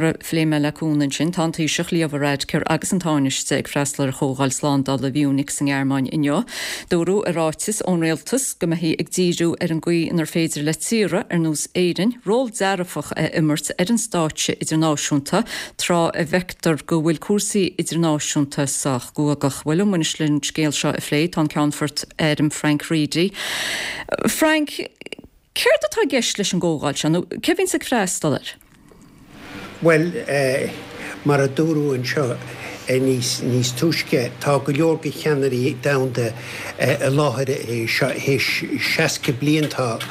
Mar a phléigh mé le Cuan ansin, tá an Taoiseach, Leo Varadkar agus an Tánaiste ag freastal ar Chomhdháil Slándála Mhunich sa nGearmáin inniu. Dúradh i ráiteas ón rialtas go mbeifí ag díriú ar an gcaoi inar féidir le tíortha ar nós Éirinn ról dearfach a imirt ar an stáitse idirnáisiúnta tráth a bhfeictear go bhfuil cúrsaí idirnáisiúnta sách guagach. Bhuel, liom anois leis an scéal seo a phlé tá an Ceannfort Airm Frank Reidy. Frank. Céard atá i gceist leis an gcomhdháil seo, nó cé a bhíonns ag freastal air? Bhuel, mar a dúradh anseo níos níos túisce, tá go leor de cheannairí domhanda i láthair seo. Théis 60 bliain tá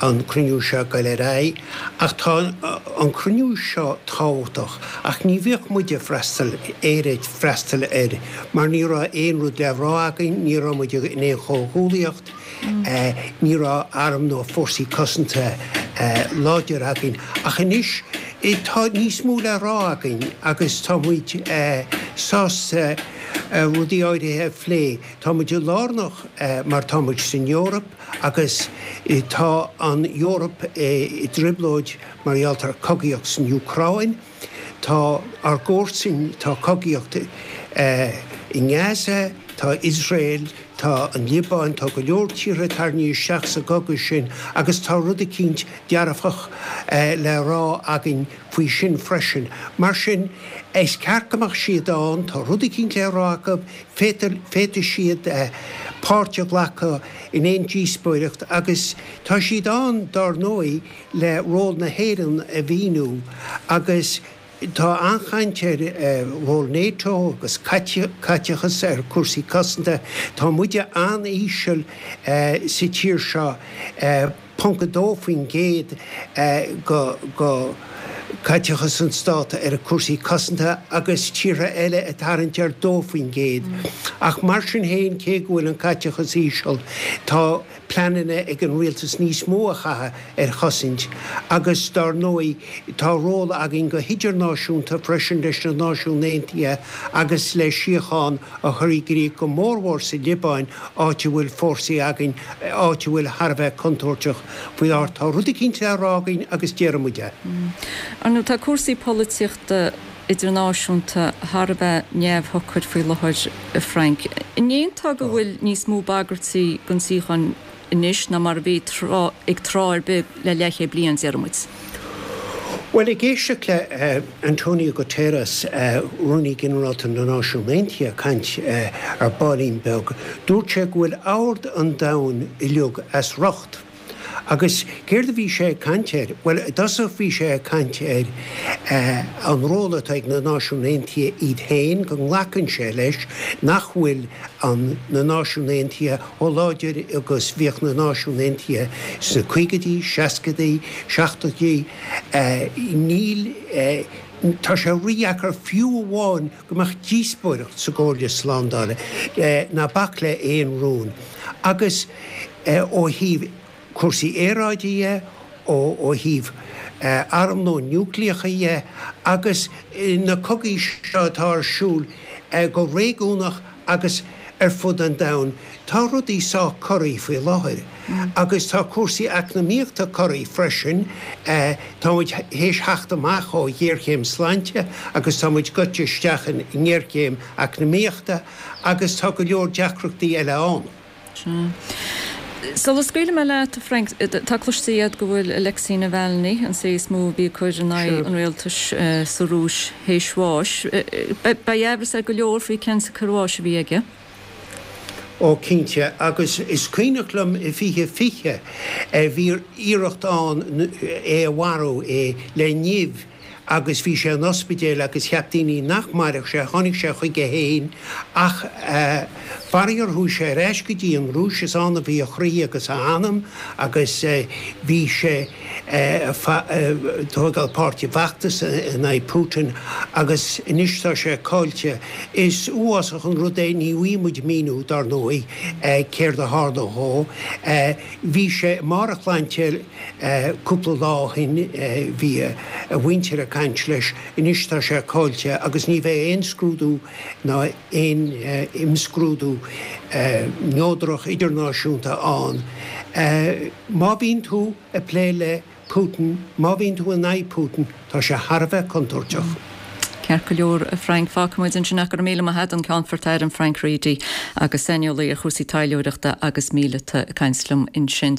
an cruinniú seo ag goil ar aghaidh. Ach tá an cruinniú seo tábhachtach. Ach ní bhíodh muid ag freastal, Éire ag freastal air, mar ní raibh aon rud le rá againn, ní raibh muid in aon chomhghuallaíocht. Ní raibh arm nó fórsaí cosanta láidir againn. Ach anois tá níos mó le rá againn agus tá muid sásta rudaí áirithe a phlé. Tá muid lárnach mar tá muid san Eoraip agus tá an Eoraip i dtrioblóid mar gheall ar cogaíocht san Úcráin. Tá ár gcomharsain, tá cogaíocht i nGaza, tá Iosrael, tá an Liobáin, tá go leor tíortha tarraingthe isteach sa gcogadh sin agus tá rud eicínt dearfach le rá againn faoi sin freisin. Mar sin, is ceart go mbeadh siad ann, tá rud eicínt le rá acu, féadfaidh siad páirt a ghlacadh in aon díospóireacht agus tá siad ann, dár ndóigh, le ról na hÉireann a mhíniú agus tá an-chaint ar ról NATO agus caiteachas ar chúrsaí cosanta. Tá muide an-íseal sa tír seo, ponc 2% de chaiteachas an stát ar chúrsaí cosanta agus tíortha eile ag tarraingt ar 2%. Ach mar sin féin, cé go bhfuil an caiteachas íseal, tá. pleananna ag an rialtas níos mó a chaitheamh ar chosaint agus dár ndóigh tá ról againn go hidirnáisiúnta freisin leis na Náisiúin Aontaithe agus le síocháin a chur i gcrích go mórmhór sa Liobáin áit a bhfuil fórsaí againn, áit a bhfuil thar a bheith contúirteach faoi láthair. Tá rud eicínt le rá againn agus déarfaidh muid é. Ar ndóigh tá cúrsaí polaitíochta idirnáisiúnta thar a bheith neamhshocair faoi láthair, a Frank. An aontófá go bhfuil níos mó bagairtí don tsíocháin anois ná mar a bhí ag tráth ar bith le leathchéad bliain, déarfaidh muid? Bhuel, ag éisteacht le Antonio Guterres, Rúnaí Ginearálta na Náisiún Aontaithe, ag caint ar baillín beag, dúirt sé go bhfuil ord an domhain uilig as riocht. Agus céard a bhí sé ag caint air? Bhuel, i dtosach bhí sé ag caint ar an ról atá ag na Náisiúin Aontaithe iad féin, go nglacann sé leis nach bhfuil an na Náisiúin Aontaithe chomh láidir agus bhíodh na Náisiúin Aontaithe sna caogaidí, seascaidí, seachtóidí. Níl, tá sé rídheacair fiú amháin go mbeadh díospóireacht sa gComhairle Slándála, ná bac le aon rún. Agus ó thaobh cúrsaí aeráide dhe, ó thaobh armlón núicléacha dhe, agus na cogaí seo atá ar siúl go réigiúnach agus ar fud an domhain, tá rudaí sách corraithe faoi láthair. Agus tá cúrsaí eacnamaíochta corraithe freisin. Tá muid théis theacht amach ó ghéarchéim sláinte agus tá muid goite isteach i ngéarchéim eacnamaíochta agus tá go leor deacrachtaí eile ann. Sea. Sula scaoilfidh mé leat, a Frank, tá cloiste agat go bhfuil Alexei Navalny, an té is mó a bhí ag cur in aghaidh an rialtais sa Rúis, théis bháis. Beidh aimhreas ar go leor faoi cén tsiocair bháis a bhí aige. Ó, cinnte. Agus is cuimhneach liom i 2020, bhí iarracht ann é a mharú, é le nimh, agus bhí sé in ospidéal agus cheap daoine nach mairfeadh sé, tháinig sé chuige féin ach faraor chuaigh sé ar ais go dtí an Rúis, is ann a bhí a chroí agus a anam agus bhí sé ag tógáil páirt i bhfeachtas in aghaidh Putin agus anois tá sé caillte. Is uafásach an rud é, ní bhfaighidh muid míniú dar ndóigh céard a tharla dhó. Bhí sé i mbarr a shláinte Cúpla lá ó shin bhí a mhuintir ag caint leis. Anois tá sé caillte agus ní bheidh aon scrúdú ná aon imscrúdú neodrach idirnáisiúnta ann. Má bhíonn tú ag plé le. Putin, má bhíonn tú in aghaidh Putin, tá sé thar a bheith contúirteach. Ceart go leor, a Frank. Fágfaidh muid ansin é. Go raibh míle maith agat, an Ceannfort Airm Frank Reidy agus saineolaí ar chúrsaí taidhleoireachta agus míleata ag caint liom ansin.